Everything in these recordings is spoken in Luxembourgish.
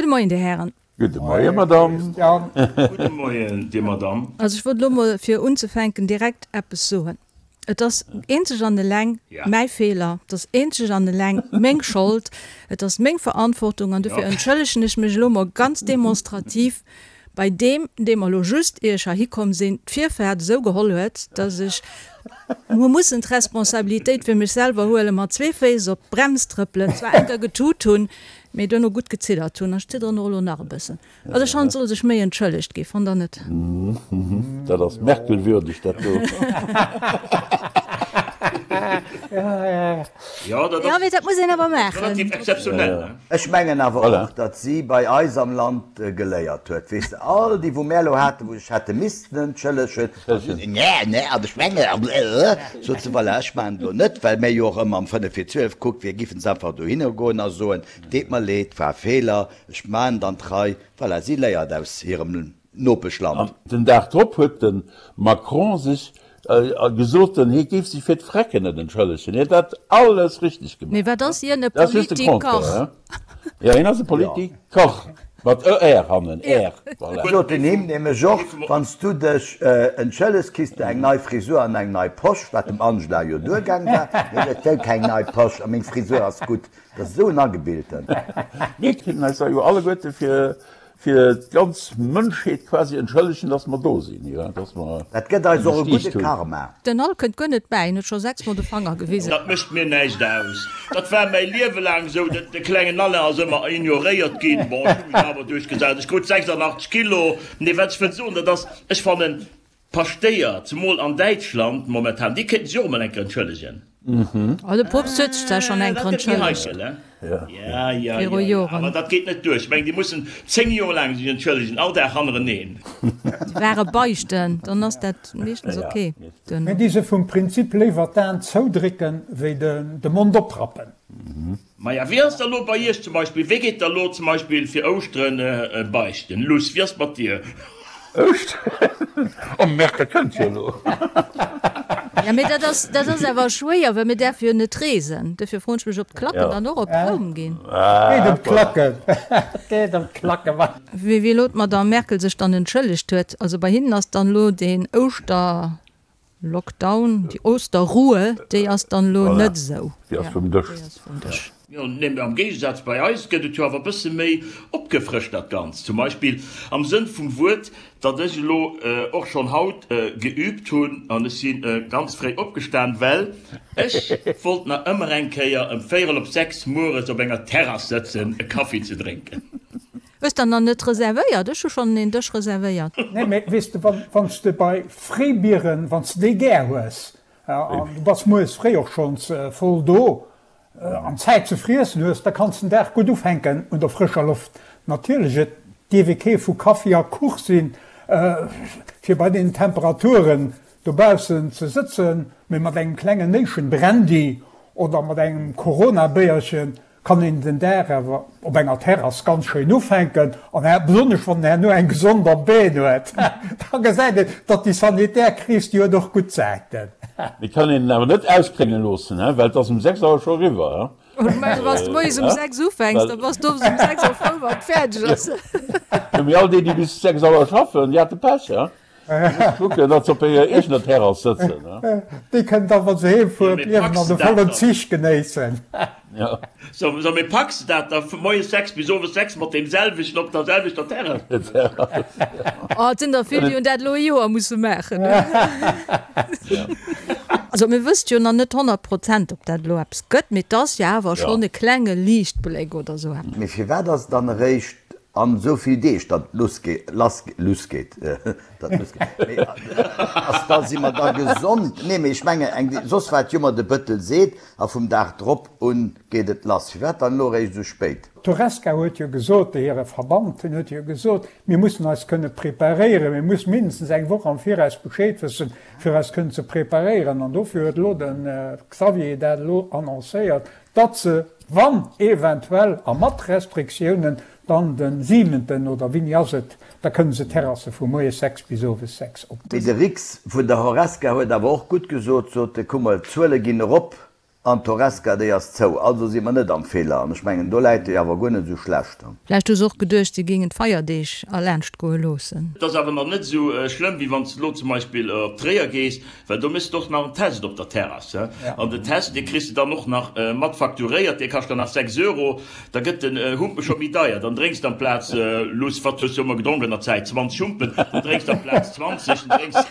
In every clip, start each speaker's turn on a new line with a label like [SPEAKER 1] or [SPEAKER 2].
[SPEAKER 1] Gudde Moien, Dir Hären.
[SPEAKER 2] Gudde Moien, Madame.
[SPEAKER 3] Gudde Moien, Dir Madame.
[SPEAKER 1] Also ech wollt elo mol fir unzefänken direkt eppes soen. Et ass eenzeg an eleng mäi Feeler, et ass eenzeg an eleng meng Schold, et ass meng Verantwortung an dofir entschëllegen ech mech elo mol ganz demonstrativ bei deem, dee mer elo just, ier ech heihi komm sinn, d'Virfahrt esou geholl huet, dass ech hu mussen d'Responsabilitéit fir mech selwer huelen, mat zwee Féiss op d'Brems trëppelen, zwar enker getut hunn, mee duerno gutt geziddert hunn. Ech zidderen och elo nach e bëssen. Also ech fannen, et soll sech méi entschëllegt ginn, fannt der net?
[SPEAKER 2] Dat ass Merkel-würdeg, dat do.
[SPEAKER 3] Jo, dat
[SPEAKER 1] Jo, mee dat muss een awer maachen.
[SPEAKER 3] Relativ exzeptionell, ne?
[SPEAKER 4] Ech mengen awer och, datt si bei eis am Land geléiert huet. Weess de, all déi, wou mär elo haten, wou sech hätte missten entschëllegen, Nä, nä, an ech mengen, an sot se, voilà, ech maachen et elo net, well mär jo och ëmmer am fënnef vir 12 kuckt, wir giffen se einfach dohinner goen a soen, deet mer leed, war e Feeler, Ech maan dann d'Rei. Voilà, si léiert aus hirem Nopeschland.
[SPEAKER 2] An den Dag drop huet de Macron sech gesot, hie géif sech fir d'Frecken net entschëllegen. Hie hätt dat alles richteg gemaach.
[SPEAKER 1] Mee wat ass hien, e
[SPEAKER 2] Dat ass just de
[SPEAKER 1] Politiker?
[SPEAKER 2] Contraire. Jo, hien ass e Politiker, mat er hannen, er, voilà.
[SPEAKER 4] Sot den him nämlech och, Wann s du dech entschëllegs, kriss de eng nei Frisur an eng nei Posch, wat dem Angela jo duergaang war. Mee ech wëll keng nei Posch a meng Frisur ass gutt. Dat ass esou en Agebilten.
[SPEAKER 2] Mir kéinten eis da jo alleguerte fir fir d'ganz Mënschheet quasi entschëllegen, dass mer do sinn, jo, dass mer
[SPEAKER 4] Dat gëtt eis och e gudde Karma.
[SPEAKER 1] Den Al kënnt guer net bäi, en huet scho 6 mol de Fanger gewisen.
[SPEAKER 3] Dat mécht mir näischt aus. Dat war mäi Liewe laang esou. De klengen Alain ass ëmmer ignoréiert ginn. Bon, ech hu mech awer duerchgesat. Ech krut 86 Kilo. Nee, wat ech wëll soen, dat ass, ech fannen, D'Paschtéier, zemol an Däitschland momentan, déi kéinten sech och emol eng Kéier entschëllegen.
[SPEAKER 1] Oh, de Poopst huet sech zwar schonn eng
[SPEAKER 3] Kéier
[SPEAKER 1] entschëllegt.
[SPEAKER 3] Ja, ja,
[SPEAKER 1] Viru
[SPEAKER 3] ja,
[SPEAKER 1] Joren.
[SPEAKER 3] awer dat geet net duer. Ech mengen, déi mussen 10 Joer laang sech entschëllegen, all Dag hannereneen.
[SPEAKER 1] Déi ware beichten, dann ass dat meeschtens ok.
[SPEAKER 5] Mir di se vum Prinzip léiwer d'Aen zoudrécken, wéi de Mond oprappen.
[SPEAKER 3] Maja, wéi ass da lo bei iech zum Beispill, wéi geet da lo zum Beispill fir Ouschteren beichten? Luss, wéi ass mat dir?
[SPEAKER 2] Ouschteren? Oh Merkel kënnt jo elo.
[SPEAKER 1] Ja, mee dat ass, dat ass awer schwéier, well mir däerfe jo net reesen. Dofir froen ech mech, ob d'Klacken dann och op Roum ginn.
[SPEAKER 5] Et geet ëm d'Klacken. Et geet ëm d'Klacken, wa.
[SPEAKER 1] Wéi elo d'Madame Merkel sech dann entschëllegt huet, also bei hinnen ass dann elo deen Ouschter. Lockdown, déi Osterruhe, déi ass dann elo net esou.
[SPEAKER 2] Déi ass vum Dësch.
[SPEAKER 3] Jo, nee, mee am Géigesaz bei eis gëtt et jo awer e bësse méi opgefrëscht dat Ganzt. Zum Beispill am Sënn vum Wuert, datt ech elo och schonn haut geübt hunn an ech si ganz fréi opgestan, well ech wollt nach ëmmer eng Kéier ëm véierel op 6 mueres op enger Terrass sëtzen e Kaffi ze drénken.
[SPEAKER 1] Hues der nach net reservéiert? Ech hu schonn een Dësch reservéiert.
[SPEAKER 5] Nee, mee weess de, wann s de bei Fréibieren, wann s de déi gär hues, an du bass mueres fréi och schonns voll do an Zäit ze friessen hues, da kanns den Dag gutt ufänken un der frëscher Loft. Natierlech, et dierf ee kee vu Kaffi a Kuch sinn, fir bei deenen Temperaturen dobaussen ze sëtzen, mee mat engem klengen Néischen Brandy oder mat engem Corona-Béierchen kann een den Dag awer op enger Terrass ganz schéin ufänken an besonnesch wann en herno eng gesond am Been huet, da gesäit een, datt déi sanitär Kris, déi huet och gutt Säiten.
[SPEAKER 2] Mee kann een en awer net ausklénge loossen, he, well et ass um 6 Auer scho eriwwer, he.
[SPEAKER 1] Ech mengen, wann s de moies um 6 ufänks, da bass de owes um 6 Auer frou, wann et fäerdeg ass.
[SPEAKER 2] Jo, mee all déi, déi bis 6 Auer schaffen, déi hate Pech, he. Kucken, datt se op hirer eegener Terrass sëtzen.
[SPEAKER 5] Déi kënnen da, wa se heem fueren, d'Liewen an de vollen Zich genéissen.
[SPEAKER 3] So, mee packs de dat da vu moies 6 bis owes 6 mat deem selwechten op der selwechter Terrass?
[SPEAKER 1] Oh, et sinn der vill, déi hunn dat elo e Joer musse maachen. Also mir wësst jo nach net 100 Prozent, ob dat elo eppes gëtt, mee et ass jo awer schonn e klenge Liichtbléck oder esou eppes.
[SPEAKER 4] Mee firwat ass et dann eréischt An esou vill Deeg, datt et luss geet, lass, luss geet, datt et luss geet, mee ass da, si mer da gesond? Nee, mee ech menge eng, soss wat jo mer de Bëttel seet, a vum Dag drop un geet et lass. Firwat dann elo eréischt esou spéit?
[SPEAKER 5] D'Horesca huet jo gesot, hire Verband, den huet jo gesot, mir mussen eis kënne preparéieren, mir mussen mindestens eng Woch am Viraus Bescheed wëssen, fir eis kënnen ze preparéieren. An dofir huet elo de Xavier dat elo annoncéiert, datt se, wann eventuell a mat Restriktiounen, dann de siwenten oder wéini ass et, da kënne se d'Terrasse vu moies 6 bis owes 6 op.
[SPEAKER 4] Mee de Rix vun der Horesca huet awer och gutt gesot, sot e, kuck mol, d'Zuele ginn erop. An d'Horesca, déi ass zou. Also si mer net am Feeler. An ech mengen, do läit e jo awer guer net esou schlecht.
[SPEAKER 1] Vläicht hu se och geduecht, si géingen d'Feierdeeg erlaanscht goe loossen.
[SPEAKER 3] Et ass awer nach net esou schlëmm, wéi wann s de elo zum Beispill op Tréier gees, well do méchs de och nach en Test op der Terrass. An den Test, dee kriss de dann och nach mat facturéiert, dee kascht dann nach 6 Euro. Da gëtt den Humpe scho méi deier. Dann drénks de amplaz, luss, wat hues du ëmmer gedronk an der Zäit, 20 Humpen, dann drénks de amplaz 20, dann drénks,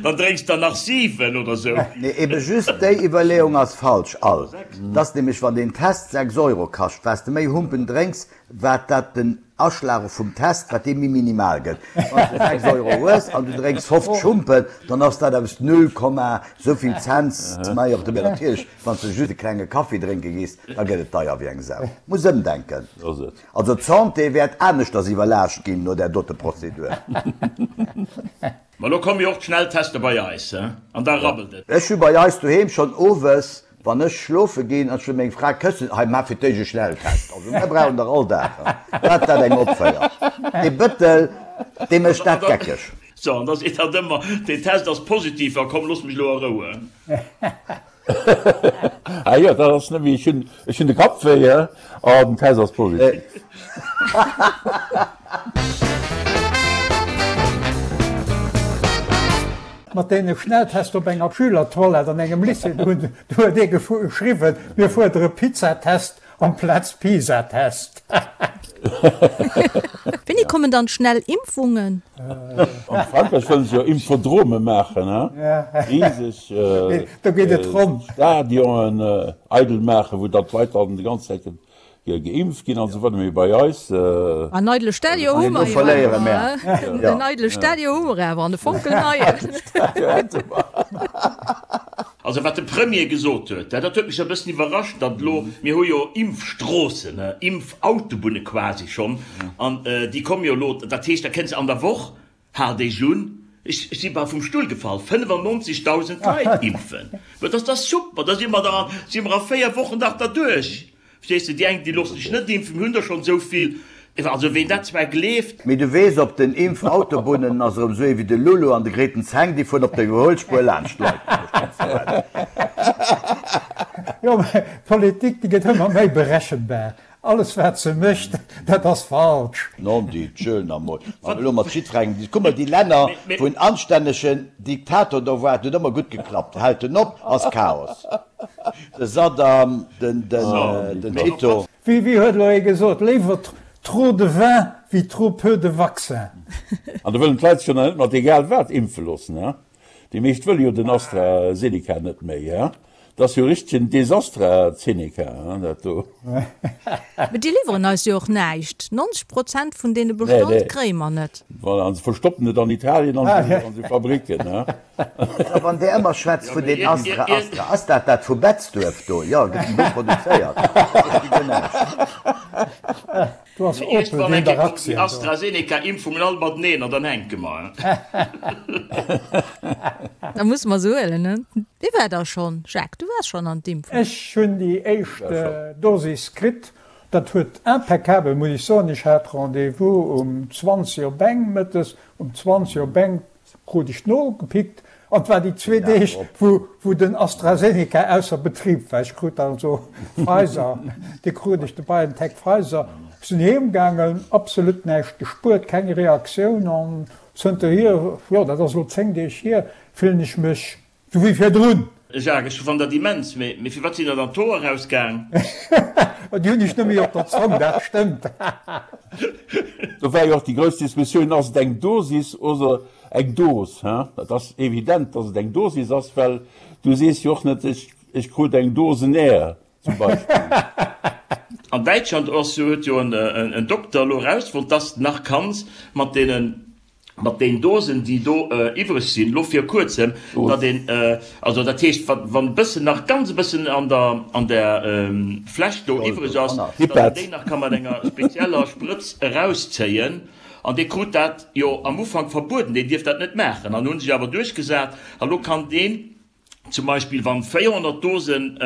[SPEAKER 3] dann drénks der nach 7 oder sou.
[SPEAKER 4] Nee, ebe just déi Iwwerleeung ass falsch all. Et ass nämlech, wann deen Test 6 Euro kascht, wat s de méi Humpen drénks, wat dat den Aschlag vum Test, wat dee méi minimal gëtt. Wann s de 6 Euro hues an du drénks 50 Humpen, dann ass dat eppes null Komma souvill Cents méi op de. Mä natierlech, Wann s de just e klenge Kaffi drénke gees, da gëtt et deier wéi eng Sau. Muss ëmdenken. Also d'Santé wäert aneschters iwwerlaascht ginn no där dote Prozedur.
[SPEAKER 3] Ma lo komme jo och d'Schnelltester bei eis, he? An da rabbelt et.
[SPEAKER 4] Ech hu bei eis doheem schonn owes, wann ech schlofe ginn an ech wëll meng Fra këssen, hei maach fir d'éischt e Schnelltest. Also mir brauchen der all Dag, he? Wat dat eng opféiert, dee Bëttel, dee mécht dat geckeg.
[SPEAKER 3] So, an da seet hatt ëmmer, deen Test ass positiv, a komm, looss mech elo a Rou, he?
[SPEAKER 2] Ah jo, dat ass net méi, ech hunn, ech hunn de Kapp wéi, he? Oh, den Test ass positiv.
[SPEAKER 5] Mat deene Schnelltest op enger Schülertoilette an engem Lycée, do huet ee geschriwwen, mir fuerdere Pizzatest Amplaz Pisa-Test.
[SPEAKER 1] Wéini kommen dann schnell Impfungen?
[SPEAKER 2] An Frankräich wëllen se jo Impfodrome maachen, he? Riseg Stadionen eidel maachen, wou dann d'Leit dann déi ganz Zäit geimpft ginn an esou weider. Mee bei eis.
[SPEAKER 1] En eidele Stadion hu mer jo awer, he? En eidele Stadion hu mer awer, an e fonkelneien.
[SPEAKER 3] Also wat de Premier gesot huet, dat huet mech e bëssen iwwerrascht, datt elo, mir hu jo Impfstroossen, Impfautobunne quasi schonn, an déi komme jo elo, dat heescht, da kënns de an der Woch, haalt Iech un, ech si bal vum Stull gefall, 95.000 Leit impfen. Mä dat ass super, da si mer da si mer a 4 Wochen dach derduerch. Verstees de, déi eng, déi loosse sech net impfen, mir hunn der schonn esou vill. Also ween dat zwar gleeft.
[SPEAKER 4] Mee du weess, op den Impfautobunnen ass erëm esou ee wéi de Lulu an de Grethen Zeng, déi fueren op der Iwwerhuelspuer laanscht d'Leit.
[SPEAKER 5] Jo, mä d'Politik, déi gëtt ëmmer méi berechenbar. Alles wat se mécht, dat ass falsch.
[SPEAKER 4] Non di, tschöl nach mol. Wann elo mat jiddwerengem dis. Kuck mol déi Länner, wou en anstännegen Diktator do war, et huet ëmmer gutt geklappt. Hält en op, ass Chaos. De Saddam, den Tito.
[SPEAKER 5] Wéi huet elo ee gesot, léiwer trop de vin wéi trop peu de vaccin.
[SPEAKER 2] An da wëllen d'Leit sech jo nach net mat egal wat impfe loossen, he? Déi meescht wëlle jo den AstraZeneca net méi, he? Dat ass jo richtegen Desastrazeneca, he, dat do.
[SPEAKER 1] Mee déi liwweren eis jo och näischt. 90 Prozent vun deene Bestand kréie mer net.
[SPEAKER 2] Voilà, an se verstoppen et an Italien an esou Fabricken, he?
[SPEAKER 4] A wann där ëmmer schwätzt vun den Astra, Astra, ass dat dat vu Betzdurf do? Jo, gëtt en do produzéiert? Ech gi guer näischt.
[SPEAKER 5] Do ass Opel, déi hunn dach Aktien
[SPEAKER 3] do. AstraZeneca-Impfungen all mateneen an dann hänke mer.
[SPEAKER 1] Da musse mer se huelen, ne? Wie war da schonn? Jacques, du waars schonn an d'Impfung?
[SPEAKER 5] Ech hunn déi éischt Dosis kritt. Dat huet impeccabel, muss ech soen. Ech hat Rendez-vous um 20 op eng mëttes. Um 20 op eng Krut ech nogepickt an et war déi zwee Deeg wou den AstraZeneca ausser Betrib war. Ech krut also Pfizer, dee krut ech, de BioNTech Pfizer. Ech sinn heem gaangen, absolut näischt gespuert, keng Reaktioun an zënterhier, jo dat ass elo 10 Deeg hier, fillen ech mech Sou wéi virdrun.
[SPEAKER 3] Jacques, ech fannen dat immens, mee firwat sinn der dann d'Hoer rausgaang?
[SPEAKER 5] Déi hunn ech net méi op der Zong, dat stëmmt.
[SPEAKER 2] Do war jo och déi grouss Diskussioun, ass et eng Dosis oder eng Dos? Et ass evident, datt et eng Dosis ass, well du sees jo och net, ech krut eng Dosen Air zum Beispill.
[SPEAKER 3] An Däitschland ass jo, huet jo en Dokter elo erausfonnt, dass de nach kanns mat deenen mat den Dosen, déi do iwwreg sinn, elo vir kuerzem, datt een, also dat heescht, wa wann e bëssen nach, ganz e bëssen an der, an der Fläsch do iwwreg ass, datt een déi nach ka mat enger spezieller Sprëtz erauszéien. An dee krut dat jo am Ufank verbueden, deen dierft dat net maachen, an hu sech awer duerchgesat. A lo kann deen zum Beispill, wann 400 Dosen.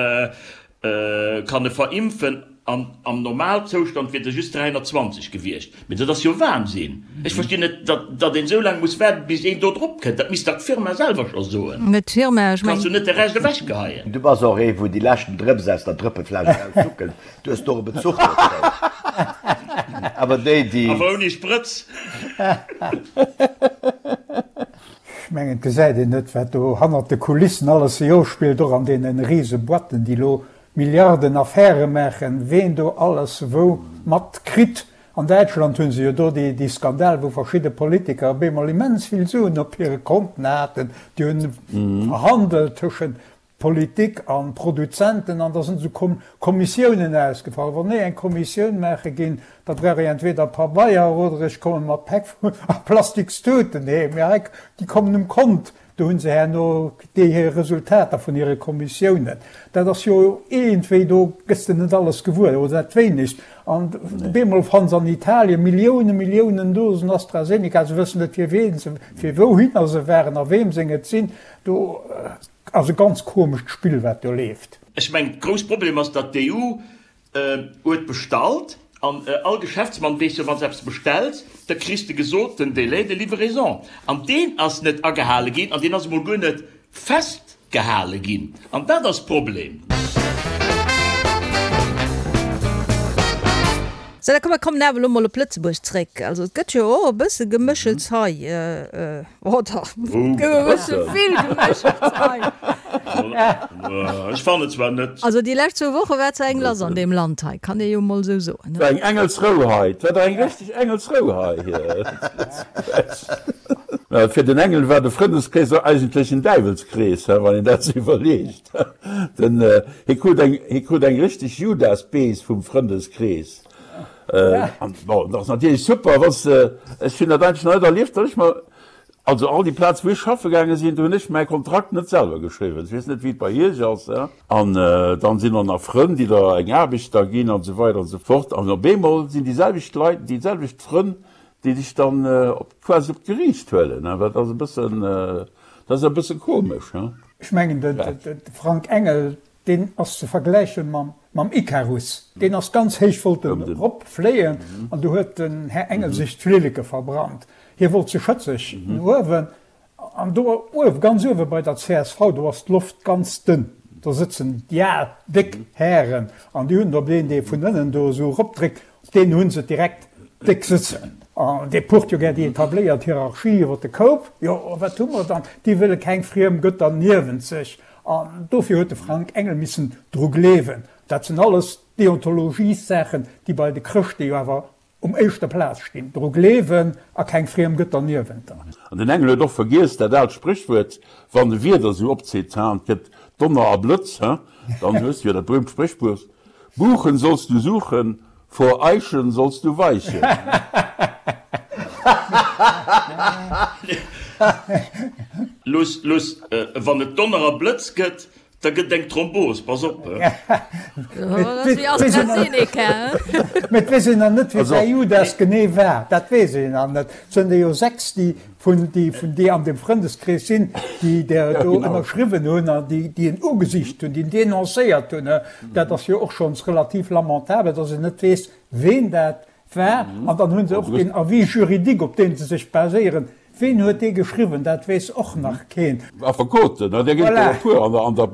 [SPEAKER 3] Kann e verimpfen an am Normalzoustand wier der just 320 gewiescht. Mee dat ass jo Wahnsinn! Ech verstinn net, datt een esou laang muss waarden, bis een do drop kënnt. Dat misst dach d'Firma selwer scho soen.
[SPEAKER 1] Net d'Firma, ech
[SPEAKER 3] Kanns du net de Rescht ewechgeheien.
[SPEAKER 4] Du bass och ee wou déi leschten Drëps aus der Drëppefläsch eraussuckelt. Du hues do e Bezuch dozou. Awer déi, déi.
[SPEAKER 3] Awer ouni Sprëtz.
[SPEAKER 5] Ech mengen, et gesäit een net, wat do hannert de Kulissen alles sech ofspillt, och an deene rise Boîten, déi elo Milliarden Affäre maachen, ween do alles wou mat kritt. An Däitschland hu se jo do déi Skandal, wou verschidde Politiker op eemol immens vill Suen op hire Konten haten. Déi hunn verhandelt tëschent Politik an Produzenten an da sinn esou Kommissiounen ausgefall. Wann ech eng Kommissioun maache ginn, da brauch ech entweder Pabeier oder ech komme mat Päck a Plastikstuten heem. Mee hei, déi kommen um Kont, do hu se herno déi hir Resultater vun hire Kommissiounen. Dat ass jo iergendwéi, do gëss de net alles gewuer oder dat wéinegst. An op eemol fanns an Italien Milliounen, Milliounen Dosen AstraZeneca, se wëssen net fir ween se, fir wouhinner se waren a weem seng et sinn. Do. Ass e ganz komescht Spill wat do leeft.
[SPEAKER 3] Ech mengen, grouss Problem ass, datt d'EU huet bestallt an all Geschäftsmann weess jo, wann s eppes bestells, da kriss de gesot den Délai de livraison an deen ass net agehale ginn an deen ass emol guer net festgehale ginn an dat ass d'Problem.
[SPEAKER 1] Sou, da komm mer kommen awer elo mol op Lëtzebuerg zréck. Also et gëtt jo och e bësse Geméchels hei. Oder et gëtt e bësse vill Geméchels hei.
[SPEAKER 3] Ech fannen zwar net.
[SPEAKER 1] Also déi lescht zwou Woche war zwar eng lass an deem Land hei, kann ee jo mol esou soen.
[SPEAKER 2] War eng Engelsrou hei. Et war dach eng richteg Engelsrou hei. Fir den Engel war de Frëndeskrees och eigentlech en Däiwelskrees, wann een dat sou iwwerleegt. Den, hie krut eng, hie krut eng richteg Judasbees vum Frëndeskrees. An bon, dat ass natierlech super, wann s de, ech hunn dat eigentlech nach net erlieft, datt ech mer, also all déi Plaze wou ech schaffe gaange sinn, do hunn ech mäi Kontrakt net selwer geschriwwen. Ech weess net, wéi et bei Iech ass. An dann sinn och nach Frënn, déi der eng Aarbecht da ginn an esou weider an esou fort. An op eemol sinn déi selwecht Leit, déi selwecht Frënn, déi dech dann op, quasi op d'Geriicht huelen. Dat ass e bëssen, dat ass e bësse komesch.
[SPEAKER 5] Ech mengen, de Frank Engel, deen ass ze vergläiche mam Ikarus. Deen ass ganz héich, wollt en erop fléien an du huet den Här Engel sech d'Flilleke verbrannt. Hie wollt ze schëtzeg no uewen an do uewe, ganz uewe bei der csv, do ass d'Loft ganz dënn. Do sëtzen déi al, déck Hären an déi hunn op deen, dee vun ënnen do esou eropdréckt, Op deen hunn se direkt déck sëtzen. An dee pucht jo gär déi etabléiert Hierarchie iwwer de Koup. Jo, a wat hu mer dann? Déi wëlle keng friem Gëtter niewent sech. An dofir huet de Frank Engel missen dru gleewen. Dat sinn alles Deontologiessaachen, déi bei de Chrëschte jo awer um éischter Plaz stinn. Dru gleewen a keng friem Gëtter niewent der.
[SPEAKER 2] An den Engel huet och vergiess dat aalt Spréchwuert, Wann de Wieder sou opzitt, an et gëtt Donner a Blëtz, dann hues du jo dat berühmt Spréchwuert, Buchen sollst du suchen, vor Eichen sollst du weichen.
[SPEAKER 3] Luss, luss, wann et Donner a Blëtz gëtt, da gëtt et eng Thrombos, pass op!
[SPEAKER 5] Mee et weess een nach net, wie däi Judas genee war. Dat weess een nach net. Et sënn der jo 6, déi vun déi vun déi an dem Frëndeskrees sinn, déi der do ënnerschriwwen hunn an déi déi en ugesicht hunn, déi en denoncéiert hunn. Dat ass jo och schonns relativ lamentabel, datt een net weess, ween dat war. An dann hu se och deen Avis juridique, op dee se sech baséieren. Ween huet dee geschriwwen? Dat weess och nach keen.
[SPEAKER 2] Affekoten, där ginn et der e puer an der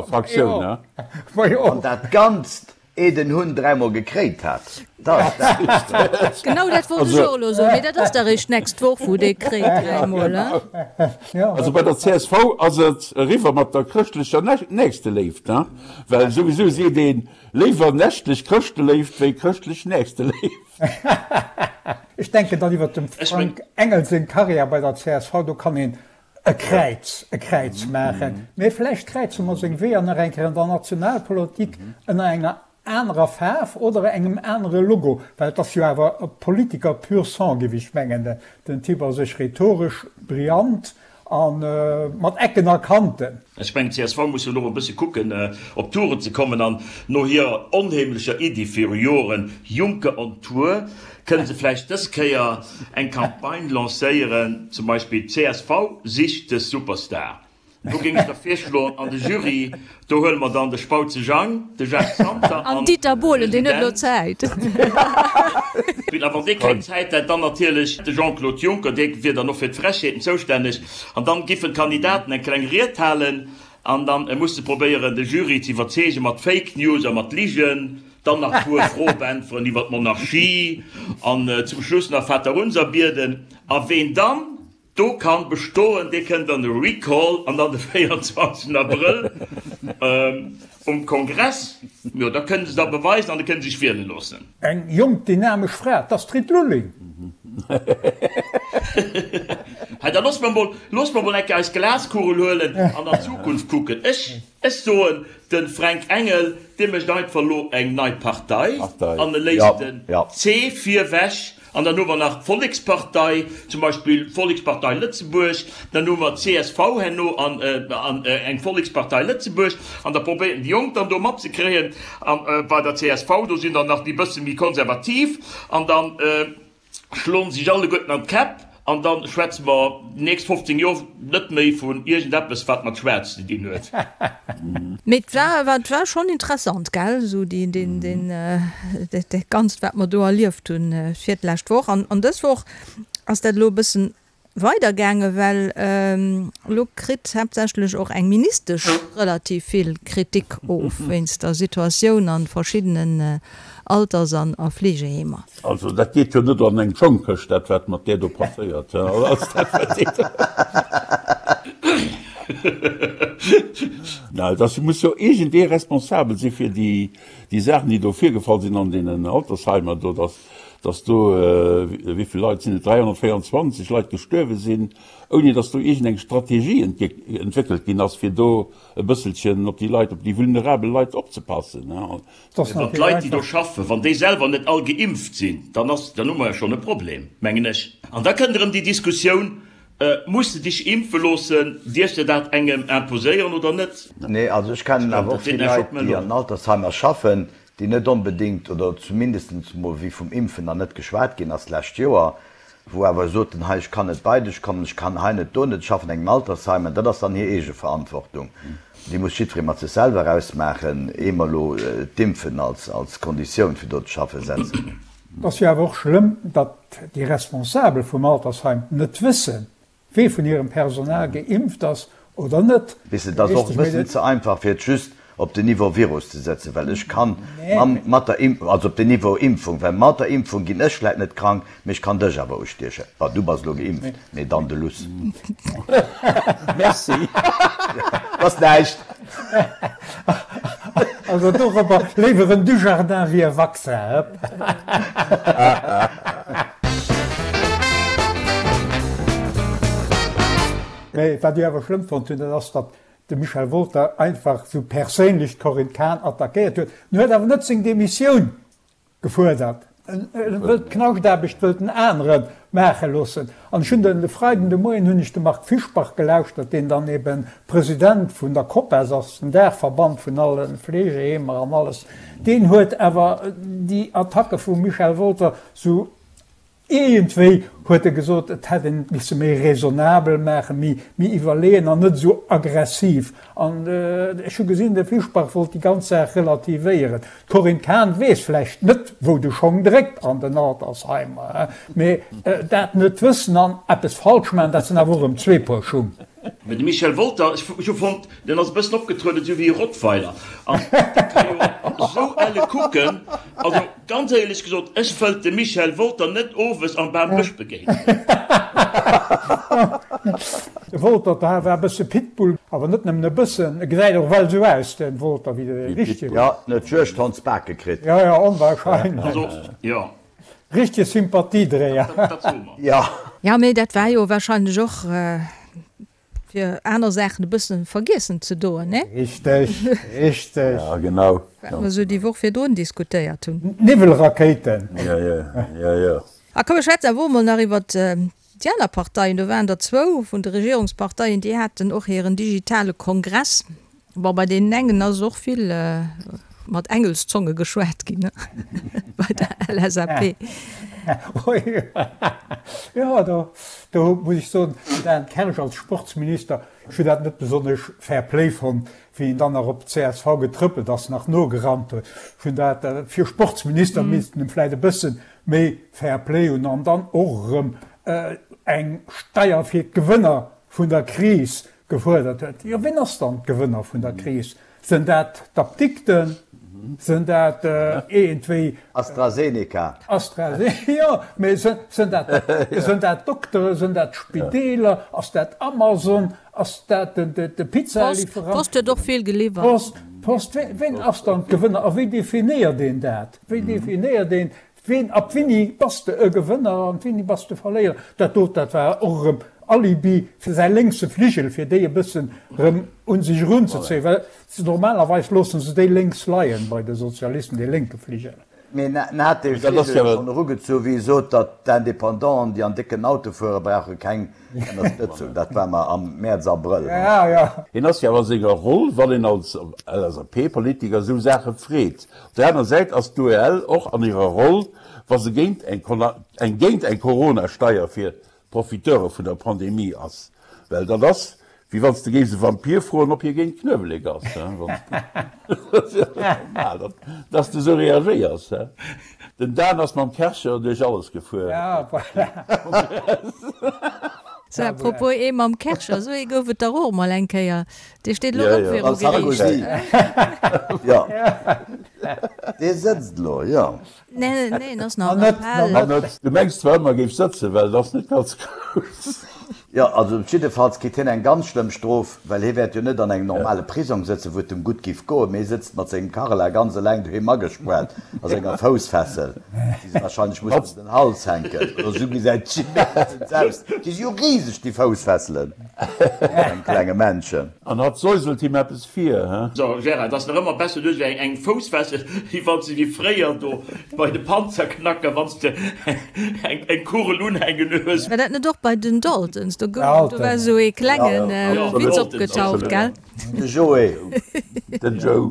[SPEAKER 2] Fraktioun.
[SPEAKER 4] An dat Ganzt Eeh den Hunn dräimol gekréit hat, da ass
[SPEAKER 1] dat. Genau dat wollt ech och elo soen, mee dat ass da réischt d'nächst Woch, wou dee kréit dräimol, hein?
[SPEAKER 2] Also bei der csv ass et eriwwer mat der chrëschtlecher Nächsteléift, hein? Well souwisou seet een, léiwer nächtlech Chrëschteléift wéi chrëschtlech Nächsteléift.
[SPEAKER 5] Ech denken dann iwwert dem Frank Engel seng Karriär bei der csv, do kann een e Kräiz, e Kräiz maachen. Mee vläicht kräize mer seng Weeër nach eng Kéier an der Nationalpolitik ënner enger anerer Faarf oder engem anere Logo, well et ass jo awer e Politiker pur sang, géif ech mengen. Den Typ ass sech rhetoresch brillant a mat Ecken a Kanten.
[SPEAKER 3] Ech mengen, csv muss jo elo e bësse kucken, op Touren ze kommen. An no hirer onheemlecher Iddi viru Joren, Juncker on Tour, kënne se vläicht dës Kéier eng Campagne lancéieren, zum Beispill csv sicht de Superstar. Do géing ech da virschloen, an de Jury, do huele mer dann de Spautze Jang, de Jacques Santer
[SPEAKER 1] an Dieter Bohlen, deen huet elo Zäit.
[SPEAKER 3] A wann dee keng Zäit hätt, dann natierlech de Jean-Claude Juncker, dee wier dann och fir d'Frechheeten zoustänneg. An dann giffen d'Kandidaten eng kleng Ried halen an dann muss se probéieren, de Jury ze iwwerzeegen mat Fake News a mat Ligen, dann nach e puer Froe beäntweren iwwer d'Monarchie an zum Schluss nach Vaterunser bieden. A ween dann Do kann bestoen, dee kënnt an de Recall an dann de 24 Abrëll um Kongress, jo da kënnen se da beweisen an da kënnen se sech wiele loossen.
[SPEAKER 5] Eng jonk dynamesch Fra, d'Astrid Lulling.
[SPEAKER 3] Hei, da loosse mer mol, loosse mer mol eng Kéier eis Glaskugel huelen an an d'Zukunft kucken. Ech, ech soen, de Fränk Engel, dee mécht einfach elo eng nei Partei an e léisst den C virwech An dann hu mer nach d'Vollekspartei, zum Beispill d'Vollekspartei Lëtzebuerg, dann hu mer d'CSV herno an eng Vollekspartei Lëtzebuerg. An da probéieren déi Jonk dann do matzekréien. A bei der csv, do sinn der nach déi bësse méi konservativ. An da schloen se sech alleguerten an d'Käpp. An da schwätze mer déi nächst 15 Joer net méi vun iergendeppes, wat mat Schwaarz ze dinn huet.
[SPEAKER 1] Mee et war awer, et war schonn interessant, gell, esou déi, deen, deen, dat Ganzt, wat mer do erlieft hunn fir d'lescht Woch. An, an dës Woch ass dat elo e bëssen weidergaangen, well elo kritt haaptsächlech och eng Ministesch relativ vill Kritik of wéinst der Situatioun a verschiddenen Alters an a Fleegeheemer.
[SPEAKER 2] Also dat geet jo net an eng Schongkëscht, dat wat mat där do passéiert ass. Dat ass, muss jo iergendee responsabel si fir déi déi Saachen, déi do virgefall sinn an deenen Altersheimer do, datt datt do, wéi vill Leit sinn et, 324 Leit gestuerwe sinn, ouni datt do iergendeng Strategie entwéckelt ginn ass, fir do e bësselchen op déi Leit, op déi vulnerabel Leit opzepassen.
[SPEAKER 3] Wann d'Leit, déi do schaffen, wann déi selwer net all geimpft sinn, dann ass, dann hu mer jo schonn e Problem, mengen ech. An da kënnt erëm déi Diskussioun, Muss de dech impfe loossen? Dierfs de dat engem imposéieren oder net?
[SPEAKER 4] Nee, also ech kennen awer och vill Leit, déi an Altersheimer schaffen, déi net onbedéngt, oder zumindest mol wéi vum Impfen nach net geschwat ginn ass d'lescht Joer, wou awer soten, hei ech kann net bei dech kommen, ech kann hei net, do net, ech schaffen an engem Altersheim, an dat ass dann hir eege Verantwortung, déi muss jiddweree mat sech selwer ausmaachen, ehe mer elo d'Impfen als als Konditioun fir do ze schaffen setzen.
[SPEAKER 5] Et ass jo awer och schlëmm, datt déi Responsabel vum Altersheim net wëssen, Wee vun hirem Personal geimpft ass oder net.
[SPEAKER 4] Weess de, et ass och e bëssen ze einfach fir et just op den Niveau Virus ze setzen, well ech kann mat der Impfung, also op den Niveau Impfung, well mat der Impfung ginn ech vläit net krank, mee ech kann dech awer ustiechen. Bon, du bass elo geimpft, mee dann de Luss.
[SPEAKER 2] Merci.
[SPEAKER 4] Ass näischt.
[SPEAKER 5] Also dorobber léiwer en Dujardin wéi e Vaccin, hëpp. Mee wat ech awer schlëmm fonnt hunn, dat ass, datt de Michel Wolter einfach esou perséinlech d'Corinne Cahen attackéiert huet. En huet awer net seng Demissioun gefuerdert. En wëllt d'Knaschtaarbecht wëllt en anere maache loossen. An ech hunn den de Freiden de Moien hunn ech de Marc Fischbach gelauschtert, deen dann eben President vun der COPAS ass, den Daachverband vun alle Fleegeheemer an alles. Deen huet awer déi Attacke vum Michel Wolter sou Iergendwéi huet e gesot, et hätt een et misse méi raisonnabel maachen, méi, méi iwwerleeën an net esou aggressiv. An ech hu gesinn, de Fischbach wollt déi ganz Saach relativéieren. D'Corinne Cahen weess vläicht net, wou de Schong dréckt an den Altersheimer, mee dat net wëssen an eppes falsch maachen, dat sinn awer och erëm zwee Puer Schung.
[SPEAKER 3] Mee de Michel Wolter, ech hu fonnt, deen ass e bëssen opgetrueden esou wéi e Rottweiler. An dee ka jo esou elle kucken. Also ganz éierlech gesot, ech wëllt de Michel Wolter net owes am Bambësch begéinen.
[SPEAKER 5] De Wolter war e bësse Pitbull, awer net nëmmen e bëssen, e gesäit och well esou aus, de Wolter, wéi de richtege.
[SPEAKER 4] Jo, en huet Juegdhondsbake kritt.
[SPEAKER 5] Jo, jo, onwahrscheinlech.
[SPEAKER 3] Also, jo.
[SPEAKER 5] Richtege Sympathiedréier.
[SPEAKER 3] Dat soe mer. Jo.
[SPEAKER 1] Jo, mee dat war jo wahrscheinlech och fir aner Saachen e bëssen vergiessen ze doen, ne?
[SPEAKER 5] Richteg, richteg.
[SPEAKER 2] Ja, genau.
[SPEAKER 1] Wat mer esou déi Woch virdrun diskutéiert hunn.
[SPEAKER 5] Niwwelrakéiten.
[SPEAKER 2] Ja, ja, ja, ja.
[SPEAKER 1] A komm, mir schwätzen awer och emol nach iwwert déi aner Parteien. Do waren der zwou vun de Regierungsparteien, déi haten och hiren digitale Kongress. Bon, bei deenen engen ass och vill mat Engelszonge geschwat ginn, bei der LSAP.
[SPEAKER 5] Jo, do, do muss ech soen, den Dan Kersch als Sportsminister. Ech hunn dat net besonnesch Fair Play fonnt, wéi en dann nach op d'CSV getrëppelt ass, nach nogerannt huet. Ech hunn dat, fir Sportsminister misst en vläicht e bësse méi Fair Play hunn an dann och erëm eng Steier fir d'Gewënner vun der Kris gefuerdert huet. Jo, wien ass dann d'Gewënner vun der Kris? Sinn dat d'Apdikten? Sinn dat iergendwéi.
[SPEAKER 4] AstraZeneca.
[SPEAKER 5] AstraZeneca, jo, mee sinn dat, sinn dat d'Dokteren, sinn dat d'Spideeler, ass dat Amazon, ass dat de Pizzaliwwerant?
[SPEAKER 1] D'Post huet och vill geliwwert.
[SPEAKER 5] D'Post, d'Post, wien ass dann d'Gewënner a wéi definéiert een dat? Wéi definéiert een Ween, ab wéini bass de e Gewënner an wéini bass de Verléierer? Dat dot, dat war och erëm Alibi fir säi lénkse Fligel, fir déi e bëssen erëm un sech erunzezéien, well normalerweis loosse se déi lénks leien bei de Sozialisten, dee lénke Fligel.
[SPEAKER 4] Mee en hat dee Fligel schonn erugezu wéi e sot, datt d'Independanten, déi an décken Auto fueren, brauche keng Ënnerstëtzung. Dat war mar am Mäerz, Abrëll.
[SPEAKER 2] Hien ass jo awer a senger Roll, wann een als LSAP-Politiker esou Saache freet. Op der aner Säit ass d'UEL och an hirer Roll, wa se géint eng géint eng Corona-Steier fir d'Profiteure vun der Pandemie ass. Well dat ass, wéi wann s de géifs e Vampir froen, ob hie géint Knuewelek ass. Dat ass jo normal, datt s de esou reagéiers. Den Dan ass mam Kärcher duerch alles gefuer.
[SPEAKER 1] Sou, à propos ee mam Kärcher, esou ee gouf et dach och emol eng Kéier. Dee steet elo och viru
[SPEAKER 4] Geriicht. Jo, dee sëtzt elo, jo.
[SPEAKER 1] Nee, nee, en ass nach am Appell.
[SPEAKER 2] Du mengs zwar ëmmer, e géif sëtzen, well et ass net ganz grouss.
[SPEAKER 4] Jo, also jiddefalls kritt hien eng ganz schlëmm Strof, well hie wäert jo net an engem normale Prisong sëtzen, wou et em gutt giff goen, mee hie sëtzt mat sengem Carla ganz eleng doheem agespuart a senger Foussfessel, déi se wahrscheinlech mussen ëm den Hals hänken, oder esou gesäit et meeschtens aus. Déi si jo riseg, déi Foussfesselen, vun engem klenge Männchen.
[SPEAKER 2] An hatt säuselt him eppes vir, he?
[SPEAKER 3] So, Gérard, et ass nach ëmmer besser, du hues eng eng Foussfessel, wéi wann s de wéi fréier do bei de Panzerknacker, wann s de eng eng Kugel unhänken hues.
[SPEAKER 1] War dat net och bei den Daltons? Do gouf, do war esou ee klengen Witz opgetaucht, gell?
[SPEAKER 4] De Joe.
[SPEAKER 2] Den Joe.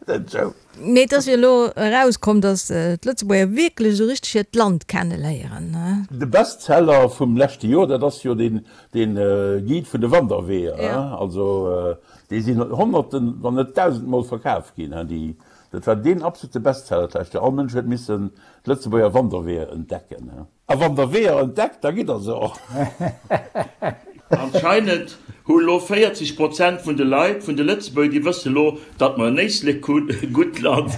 [SPEAKER 2] Den Joe.
[SPEAKER 1] Mee et ass jo elo erauskomm, datt d'Lëtzebuerger wierklech esou richteg hiert Land kenneléieren.
[SPEAKER 2] De Bestseller vum leschte Joer, dat ass jo deen Guide vun de Wanderweeër. Also déi sinn honnerten, wann net dausendmol verkaf ginn. Dat war deen absolute Bestseller d'lescht Joer. All Mënsch huet missen d'Lëtzebuerger Wanderweeër entdecken. A wann der Weeër entdeckt, da gitt der se och.
[SPEAKER 3] Anscheinend hu lo 40 Prozent vun de Leit, vun de Lëtzebuerger, déi wësse lo, datt mer en Éislek hunn, e gutt Land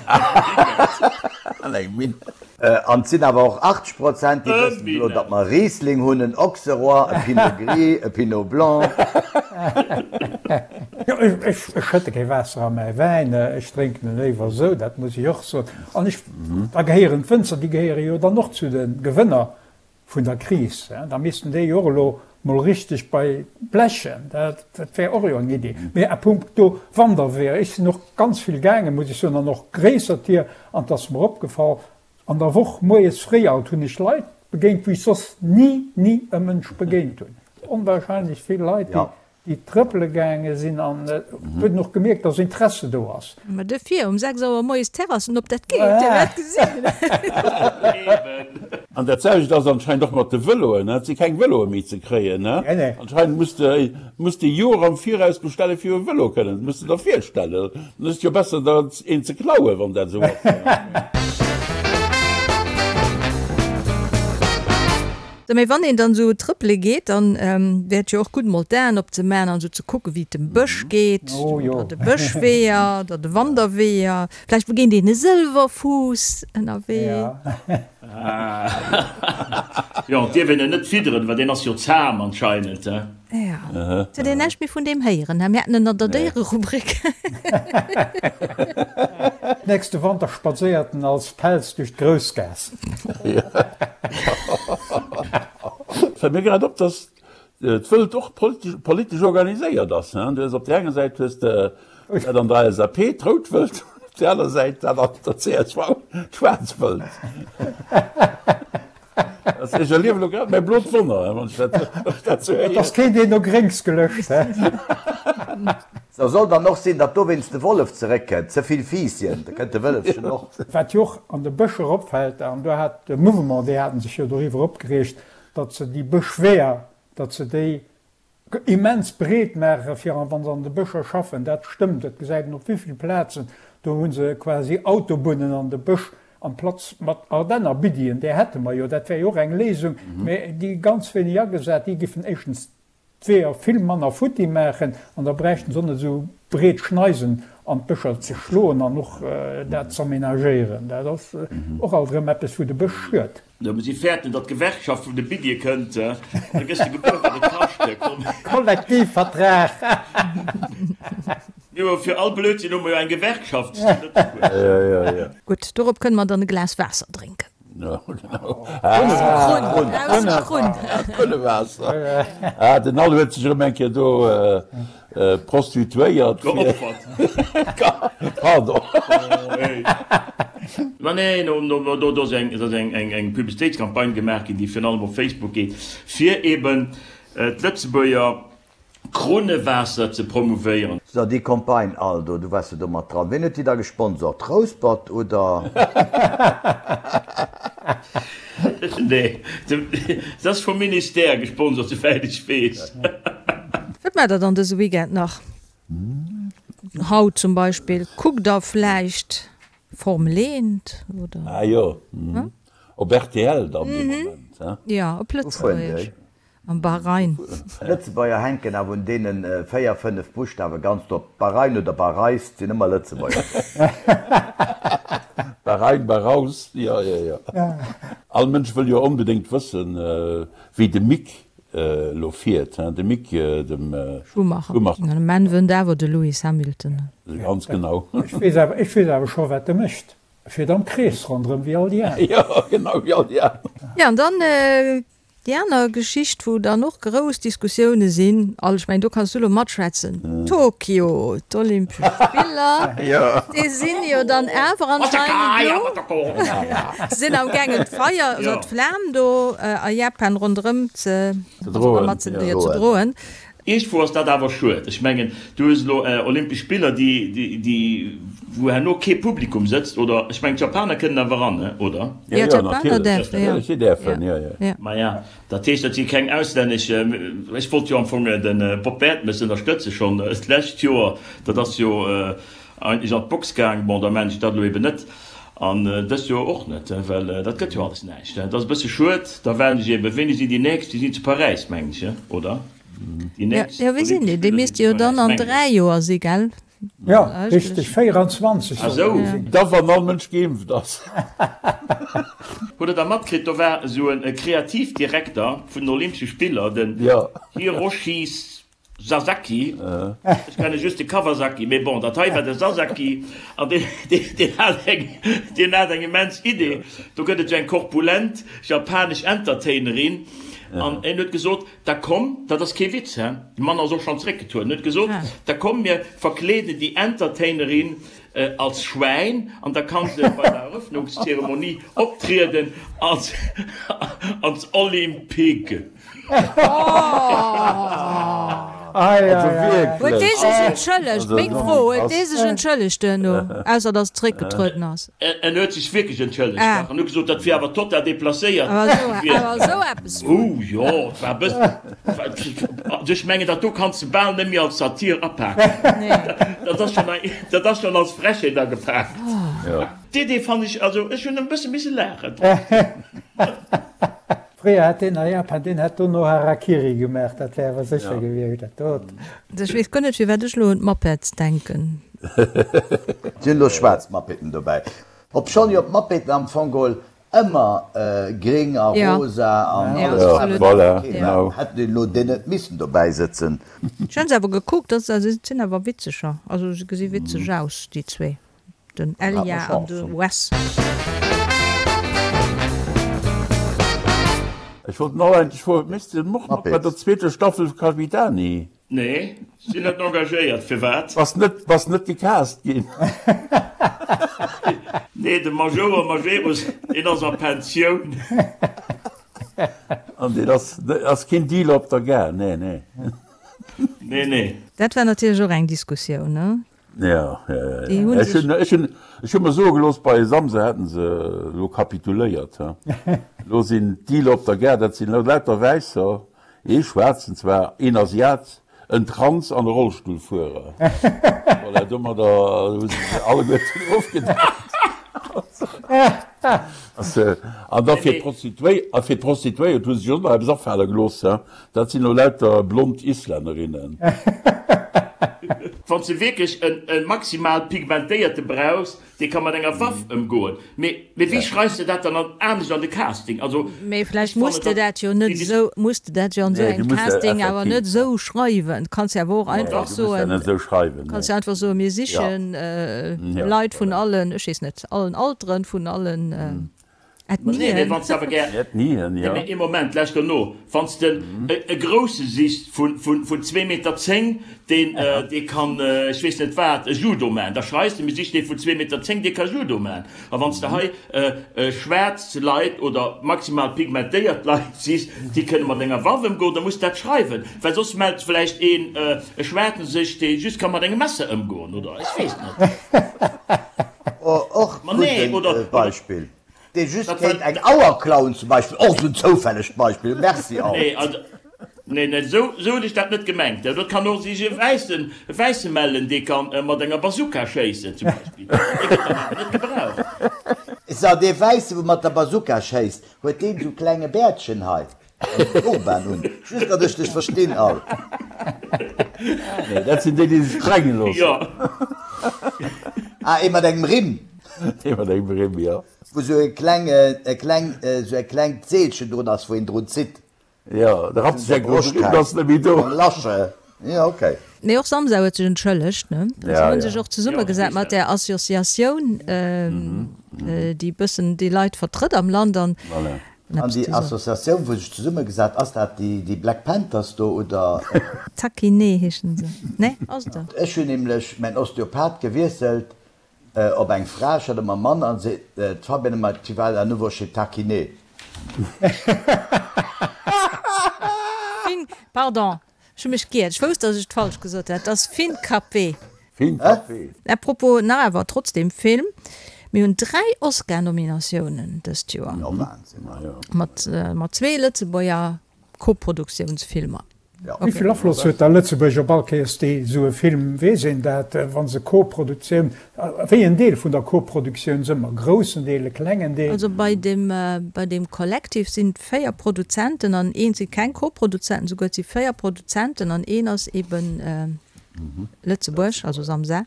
[SPEAKER 2] an eng Minn.
[SPEAKER 4] An et sinn awer och 80 Prozent, déi wëssen elo, datt mer e Riesling hunn, en Auxerrois, e Pinot Gris, e Pinot Blanc.
[SPEAKER 5] Jo, ech schëtte kee Waasser a mäi Wäin, ech drénken e léiwer esou, dat muss ech och soen. An ech Da gehéieren d'Wënzer, déi gehéiere jo dann och zu de Gewënner vun der Kris. Da missten déi jo och elo mol richteg bei blechen. Dat wär och jo eng Idee. Mee à puncto Wanderweeër, ech sinn och ganz vill gaangen, muss ech soen, an och gréisser Tier. An et ass mer opgefall, an der Woch moies fréi alt hunn ech Leit begéint, wou ech soss ni, ni e Mënsch begéint hunn. Onwahrscheinlech vill Leit, déi déi trëppele gaange sinn an et huet een och gemierkt, dass Interesse do ass.
[SPEAKER 1] Ma duerfir um 6 Auer moies d'Terrassen op, dat geet, Dir wäert gesinn.
[SPEAKER 2] An dat selwecht ass anscheinend och mat de Vëloen, et si keng Vëloe méi ze kréien. Anscheinend muss de muss de Joer am Viraus bestelle fir e Vëlo kënnen, dat muss de der virstellen. Dann ass et jo besser der een ze klauen, wann dat esou ass.
[SPEAKER 1] Sou, mee wann een dann esou trëppele geet, dann wär et jo och gutt mol d'Aen opzemaachen an esou ze kucken, wéi et dem Bësch geet, oder de Bëschweeër oder de Wanderweeër. Vläicht begéint een e Sëlwerfuuss ënnerwee.
[SPEAKER 3] Jo, et dierf een en net fidderen, well deen ass jo zahm anscheinend, he?
[SPEAKER 1] Jo, et huet een näischt méi vun deem héieren, he? Mir haten en an der Déiererubrik.
[SPEAKER 5] Nächste Wanter spadséiert en als Pelz duerch d'Groussgaass.
[SPEAKER 2] Fällt mir grad op, dass d'Wëld och politesch organiséiert ass. Du hues op där enger Säit hues de dat an der LSAP, d'rout Wëld, op där aner Säit dat an der csv, d'schwaarz Wëld. Ech erliewen elo grad mäi blot Wonner, wann ech dat sou
[SPEAKER 5] héieren. Et ass keen deen no Gréngs gelëscht, he?
[SPEAKER 4] Sou soll dann och sinn, datt dowéinst de Wollef zeréckkënnt. Ze vill Fiisschen, da kënnt de Wëllefchen och.
[SPEAKER 5] Wat jo och an de Bëscher opfält, an do hat de Mouvement, déi haten sech jo doriwwer opgereegt, datt se déi Bëschweeër, datt se déi. Immens breet maache fir wa se an de Bëscher schaffen. Dat stëmmt, dat gesäit een op wéivill Plazen. Do hu se quasi Autobunnen an de Bësch amplaz mat Ardenner Biddien. Där hätte mer jo, dat wär jo och eng Léisung, mä déi ganz wéineg agesat. Déi giffen éischtens d'Weeër vill manner futti maachen an da bräichten se och net esou breet Schneisen an d'Bëscher ze schloen an och dat z'aménagéieren. Dat ass och alt erëm eppes, wou de Bësch schued.
[SPEAKER 3] Jo, mee si fäerten, datt d'Gewerkschaft vun de Biddie kënnt, an da gëss de gebuer, wat et kascht. Komm.
[SPEAKER 5] Kollektivvertrag!
[SPEAKER 3] Jo, fir all Blödsinn hu mer jo eng Gewerkschaft zu Lëtzebuerg.
[SPEAKER 1] Gutt, dorop kënne mer dann e Glas Waasser drénken.
[SPEAKER 2] Jo, genau.
[SPEAKER 1] Aus dem Krunn, aus dem Krunn.
[SPEAKER 2] Krunnewaasser. Ah, den Al huet sech erëm eng Kéier do Prostituéiert.
[SPEAKER 3] Geopfert.
[SPEAKER 2] Pardon.
[SPEAKER 3] Ma nee, do ass eng Publicitéitscampagne gemaach ginn, déi virun allem op Facebook geet, fir eben d'Lëtzebuerger Krunnewaasser ze promouvéieren.
[SPEAKER 4] So, déi Campagne all do, du waars jo do mat dran. Ween huet déi da gesponsort? Rouspert oder?
[SPEAKER 3] Nee, se ass vum Ministère gesponsert, souwäit ech weess.
[SPEAKER 1] Wat maacht der dann dëse Weekend nach? Haut zum Beispill, kuckt der vläicht Formel 1 oder?
[SPEAKER 2] Ah jo, op rtl dann dee Moment, he?
[SPEAKER 1] Jo, op Lëtzebuergesch. Am Bahrain.
[SPEAKER 4] Lëtzebuerger hänken awer un deenen 4, 5 Buschtawe ganz drop. Bahrain oder Bahreis, 't sinn ëmmer Lëtzebuerger do.
[SPEAKER 2] Bahrain, Bahraus, jo, jo, jo. All Mënsch wëll jo onbedéngt wëssen, wéi de Mick elo fiert, hein, de Mick, dem
[SPEAKER 1] Schumacher. Schumacher. De Menn wënnt awer de Lewis Hamilton.
[SPEAKER 2] Ganz genau.
[SPEAKER 5] Ech weess awer, ech weess awer scho wat e mécht. E fiert am Krees ronderëm wéi all déi aner.
[SPEAKER 2] Jo, genau, wéi all déi aner.
[SPEAKER 1] Jo, an dann Déi aner Geschicht, wou dann och grouss Diskussioune sinn, Al, ech mengen, do kanns du elo matschwätzen, Tokio, d'Olympesch Spiller, déi sinn jo dann awer anscheinend elo, sinn am gaangen d'Feier oder d'Flam do a Japan ronderëm ze droen.
[SPEAKER 3] Iergendwou ass dat awer schued. Ech mengen, du hues elo Olympesch Spiller, déi, déi, wou herno kee Publikum sëtzt, oder? Ech mengen, d'Japaner kënnen awer eran, oder?
[SPEAKER 1] Jo, d'Japaner däerfen, jo.
[SPEAKER 2] Si däerfen, jo, jo.
[SPEAKER 3] Maja, dat heescht, dat si keng auslännesch. Ech wollt jo am Fong de Bob Bertemes ënnerstëtze schonn d'lescht Joer. Dat ass jo eigentlech an d'Box gaang. Bon, da maachen ech dat elo eben net. An dëst Joer och net, well dat gëtt jo alles näischt. Dat ass e bësse schued. Da waarden ech eben, wéini sinn déi nächst? Déi sinn zu Paräis, mengen ech, oder?
[SPEAKER 1] Déi nächst Jo, wéi sinn déi? Déi misste jo dann an 3 Joer si, gell?
[SPEAKER 5] Jo, richteg, 24
[SPEAKER 3] sollen déi
[SPEAKER 2] sinn. Da wann all Mënsch geimpft ass.
[SPEAKER 3] Hutt der da matkritt, do war esou e Kreativdirekter vun den Olympesche Spiller, den Hiroshi Sasaki, ech kenne just de Kawasaki, mee bon, dat hei war de Sasaki, an deen hat eng, deen hat eng immens Idee. Do gëtt et esou eng korpulent japanesch Entertainerin, an en huet gesot, Da komm, dat ass kee Witz, he, de Mann ass och schonn zréckgetrueden, huet gesot, da komm mir verkleeden déi Entertainerin als Schwäin an da kann se bei der Eröffnungszeremonie optrieden als als Olympig.
[SPEAKER 2] Also wierklech.
[SPEAKER 1] Huet dee sech entschëllegt? Meng Fro, huet dee sech entschëllegt duerno, ausser datt en zréckgetrueden ass?
[SPEAKER 3] En huet sech wierklech entschëllegt, dach, an huet gesot, dat wier awer total deplacéiert
[SPEAKER 1] gewiescht. Awer esou eppes
[SPEAKER 3] vun. Oh jo, et war e bëssen, also ech mengen, dat do kanns de bal net méi als Satir apaken. Dat ass schonn, dat ass schonn als Frechheet agepaakt. D'Idee fann ech, also ech hunn e bësse misse laachen trotzdem.
[SPEAKER 5] Fréier hätt deen a Japan, deen hätt dono Harakiri gemaach, dat wär awer sécher gewiescht, dat dot.
[SPEAKER 1] Ech weess guer net firwat ech lo un d'Muppets denken.
[SPEAKER 4] Et sinn elo schwaarz Muppeten dobäi. Obschonn jo d'Muppeten am Fong geholl ëmmer gréng a rosa an alles Faarwen okay waren, hätten déi elo déi net missen dobäi sëtzen.
[SPEAKER 1] Ech hunn se awer gekuckt, dat sinn awer witzeger, also se gesi witzeg aus déi zwee. Den Elia an de Wes.
[SPEAKER 2] Ech wollt nach eigentlech froen, Méchs de och mat bei der zweeter Staffel Capitani?
[SPEAKER 3] Nee, sinn net engagéiert. Firwat?
[SPEAKER 2] Bass net, bass net gecast ginn?
[SPEAKER 3] Nee, de Majouer Majerus, deen ass a Pensioun.
[SPEAKER 2] An deen ass, ass keen Dealer op der Gare, nee, nee.
[SPEAKER 3] Nee, nee.
[SPEAKER 1] Dat war natierlech och eng Diskussioun, ne?
[SPEAKER 2] Ja, ja, ja, ja. Ech hunn, ech hunn, ech hu mer soe gelooss, bei Samse hätten se elo kapituléiert. He. Elo sinn d'Dealer op der Gare, dat sinn elo lauter Wäisser. Ee Schwaarzen zwar, een Asiat, en Trans an e Rollstullfuerer. Voilà, domadder hu se se alleguerten ofgedeckt. An da fir d'Prostituéiert hu se sech och nach eppes afale gelooss, dat sinn elo lauter blond Islännerinnen.
[SPEAKER 3] Wann s de wierklech e maximal pigmentéierte brauchs, Dee ka mat enger Waff ëmgoen. Mee wéi schreifs de dat dann anescht an de Casting? Also,
[SPEAKER 1] Mee vläicht muss de dat jo net esou, muss de dat jo an esou engem Casting awer net esou schreiwen. Du kanns jo awer och einfach soen, kanns jo einfach soen, mir sichen Leit vun allen, ech weess net, allen Alteren, vun allen
[SPEAKER 3] Ethnien. Nee, wann s de awer gär.
[SPEAKER 2] Ethnien, jo.
[SPEAKER 3] Nee, mee ee Moment, lauschter no. Wann s de e Grousse sichs vun zwee Meter zéng, deen, dee kann, ech weess net wat, e Judo maachen, da schreis de, mir sichen ee vun zwee Meter zéng, dee ka Judo maachen. A wann s de hei schwaarz Leit oder maximal pigmentéiert Leit sichs, déi kënne mat enger Waff ëmgoen, da muss de dat schreiwen, well soss mellt vläicht een, e Schwaarzen sech, dee just ka mat engem Messer ëmgoen, oder ech weess net.
[SPEAKER 4] Och gudden Beispill. Dee just kéint eng Auer klauen zum Beispill, och esou en zoufällegt Beispill, merci alt.
[SPEAKER 3] Nee, also, nee, nee, esou, esou hunn ech dat net gemengt. Dat kann och sech e Wäissen, e Wäisse mellen, dee ka mat enger Bazooka schéissen zum Beispill. Dee gëtt dann awer net gebraucht.
[SPEAKER 4] So, dee Wäisse wou mat der Bazooka schéisst, huet deen esou klenge Bäertchen hei? An Turban un. Just datt ech dech verstinn alt.
[SPEAKER 2] Nee, dat sinn déi, déi sech sprenge loossen.
[SPEAKER 3] Jo.
[SPEAKER 4] Ah, ee mat engem Rimm.
[SPEAKER 2] Ee mat engem Rimm, jo.
[SPEAKER 4] Wou sou e kleng, e kleng, sou e klengt Seelchen drun ass, wou een drun zitt.
[SPEAKER 2] Jo, da rappt sech eng drun, de Rimm ass net méi do.
[SPEAKER 4] Eng Lasche. Jo, okay.
[SPEAKER 1] Nee, och Samsa huet sech entschëllegt, ne? Si hunn sech och zesummegesat mat där Associatioun, déi bëssen déi Leit vertrëtt am Land an.
[SPEAKER 2] Voilà.
[SPEAKER 4] An déi Associatioun wou sech zesummegesat, ass dat déi Black Panthers do oder?
[SPEAKER 1] Takiné heeschen se, ne? Ass et dat?
[SPEAKER 4] Ech hunn nämlech mäin Osteopath gewiesselt op eng Fra, ech hat ëmmer Mann, an se, d'Fabienne ëmmer, tu vas à nouveau chez ta kiné.
[SPEAKER 1] Fin, pardon, Ech hu mech giert. Ech wousst, dass ech et falsch gesot hat. Et ass Fincapé.
[SPEAKER 2] Fincapé.
[SPEAKER 1] À propos, nach awer trotzdem Film, Mir hunn 3 Oscar-Nominatiounen dëst Joer.
[SPEAKER 4] Jo, Wahnsinn.
[SPEAKER 1] Mat, mat zwee Lëtzebuerger Koproduktiounsfilmer.
[SPEAKER 5] Wéi vill Afloss huet da Lëtzebuerg op all Kéiers déi esou e Film, weess een dat, wa se Koproduktioun, wéi en Deel vun der Koproduktioun se ëmmer, groussen Deel, e klengen Deel?
[SPEAKER 1] Also bei dem, bei dem Collective sinn 4 Produzenten an een si keng Koproduzenten, souguer et si 4 Produzenten an een ass eben Lëtzebuerg, also Samsa.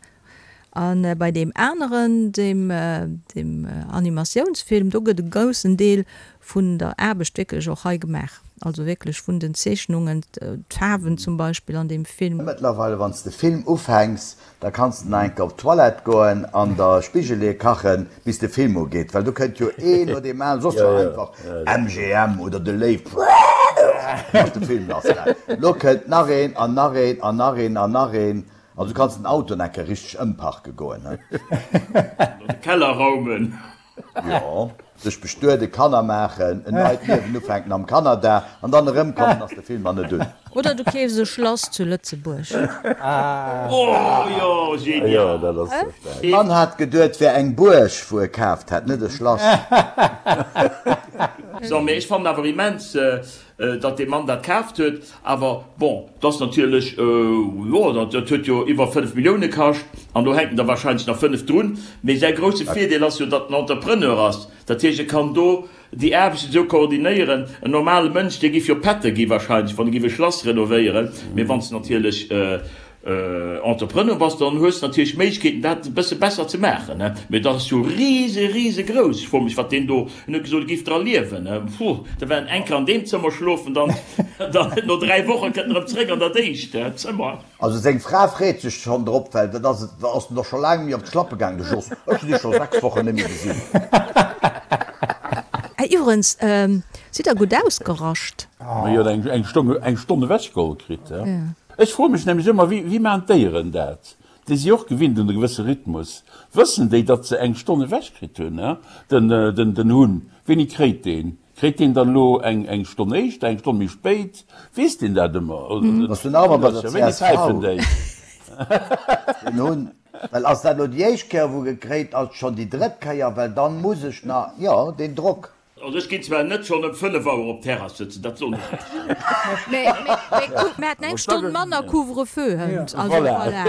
[SPEAKER 1] A bei deem aneren, deem deem Animatiounsfilm, do gëtt e groussen Deel vun der Aarbecht wierklech och hei gemaach, also wierklech vun den Zeechnungen, d'Faarwen zum Beispill an deem Film.
[SPEAKER 4] Mëttlerweile wann s de Film ufänks, Da kanns de nach eng Kéier op d'Toilette goen an der Spigelee kachen, bis de Film ugeet, well do kënnt jo een no deem aneren, soss war einfach MGM oder de Léiw, ass de Film lass gaang. Lo kënnt nach een an nach een an nach een an nach een, also du kanns den Auto nach eng Kéier richteg ëmparke goen.
[SPEAKER 3] An de Keller raumen.
[SPEAKER 4] Jo, sech bestueden, Kanner maachen, en neit Liewen ufänken am Kanada an dann erëmkommen, ass de Film nach net un.
[SPEAKER 1] Oder du keefs e Schlass zu Lëtzebuerg.
[SPEAKER 3] Oh jo, genial!
[SPEAKER 4] De Mann hat geduet, wär eng Buerg wou e kaaft hätt, net e Schlass.
[SPEAKER 3] So, mee ech fannen awer immens, Datt dee Mann dat kaaft huet, awer bon, 't ass natierlech, jo, dat huet jo iwwer 5 Millioune kascht an do hänken der wahrscheinlech nach 5 drun. Mee säi grousse Virdeel ass jo, datt en Entrepreneur ass. Dat heescht, e kann do déi Aarbechten esou koordinéieren. En normale Mënsch, dee giff jo Pätter gi wahrscheinlech, wann e giff e Schlass renovéieren. Mee wann s de natierlech Entrepreneur bass, dann hues de natierlech Méiglechkeeten dat e bësse besser ze maachen, ne? Mee dat ass jo rise risegrouss. Ech froe mech wat deen do, en huet gesot e giff dra liewen, ne? Puh, da war en eng Kéier an deem Zëmmer schlofen, dann dann no 3 Woche kënnt en erëm zréck an dat éischt Zëmmer.
[SPEAKER 4] Also seng Fra freet sech schonn drop, well dat ass et ass en doch scho laang méi op d'Schlappe gaang, de Jos. Ech hunn dee scho 6 Wochen net méi gesinn.
[SPEAKER 1] Iwwerens, sidd der gutt ausgerascht?
[SPEAKER 2] Ma jo, eng Stonn eng Stonn ewechgeholl kritt, he? Ech froe mech nämlech ëmmer, wéi wéi maachen d'Déieren dat? Déi si och gewinnt un e gewësse Rhythmus. Wëssen déi, datt se eng Stonn ewech kritt hunn, he? Den den den Hunn, wéini kréit deen? Kréit deen dann elo eng eng Stonn éischter, eng Stonn méi spéit? Weess deen dat ëmmer?
[SPEAKER 4] Bass du nach ëmmer bei der
[SPEAKER 2] Wéini
[SPEAKER 4] csv?
[SPEAKER 2] päifen déi?
[SPEAKER 4] Den Hunn, well ass dat elo déi éischt Kéier wou e kréit, ass et schonn déi drëtt Kéier, well dann muss ech nach, jo, deen Drock.
[SPEAKER 3] Also ech ginn zwar net schonn ëm 5 Auer op d'Terrass sëtzen, dat soen ech Iech.
[SPEAKER 1] Mä kuck, mir haten eng Stonn manner Couvre-feu hënt, also voilà.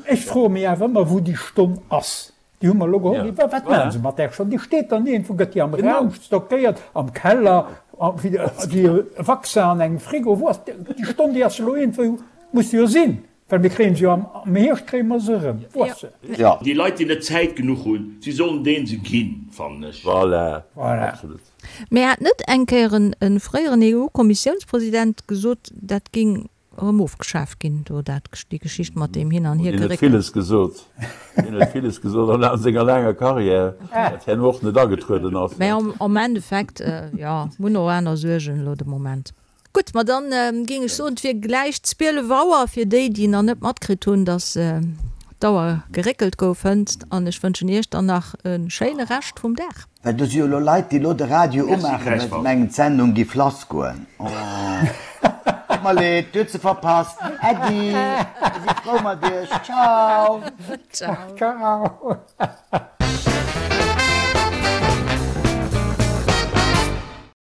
[SPEAKER 5] Ech froe mech awer ëmmer, wou déi Stonn ass. Déi hu mer elo geholl. Mee wat maache se mat där Stonn? Déi steet dann iergendwou, gëtt déi am Raum stockéiert, am Keller, wéi e Vaccin an engem Frigo? Wou ass déi Stonn? Déi ass elo iergendwou, muss se jo sinn. Well mir kréien se jo am Hierscht kréie mer se erëm. Wou ass se?
[SPEAKER 3] Jo. Déi Leit, déi net Zäit genuch hunn, si sollen deen se ginn, fannen ech.
[SPEAKER 2] Voilà, absolut.
[SPEAKER 1] Mä hat net eng Kéier e fréieren EU-Kommissiounspresident gesot, dat géing erëm ofgeschaaft ginn, do dat, déi Geschicht mat deem Hin an
[SPEAKER 2] Hiergeréckels? Deen huet villes gesot. Deen huet villes gesot a senger laanger Karriär, dat herno och net agetrueden ass.
[SPEAKER 1] Mä am Endeffekt, jo, mir hunn och aner Suergen elo de Moment. Gutt, ma dann géing ech soen, et wier gläich 12 Auer fir déi, déi nach net matkritt hunn, dass d'Auer geréckelt gouf hënt. An ech wënschen Iech dann nach e schéine Rescht vum Dag.
[SPEAKER 4] Well do si jo elo Leit, déi elo de Radio umaachen, well se mengen, d'Sendung giff lassgoen. Oh, tut mer leed, dir hutt se verpasst. Äddi, mir si frou mat iech. Ciao.
[SPEAKER 1] Ciao.
[SPEAKER 5] Ciao.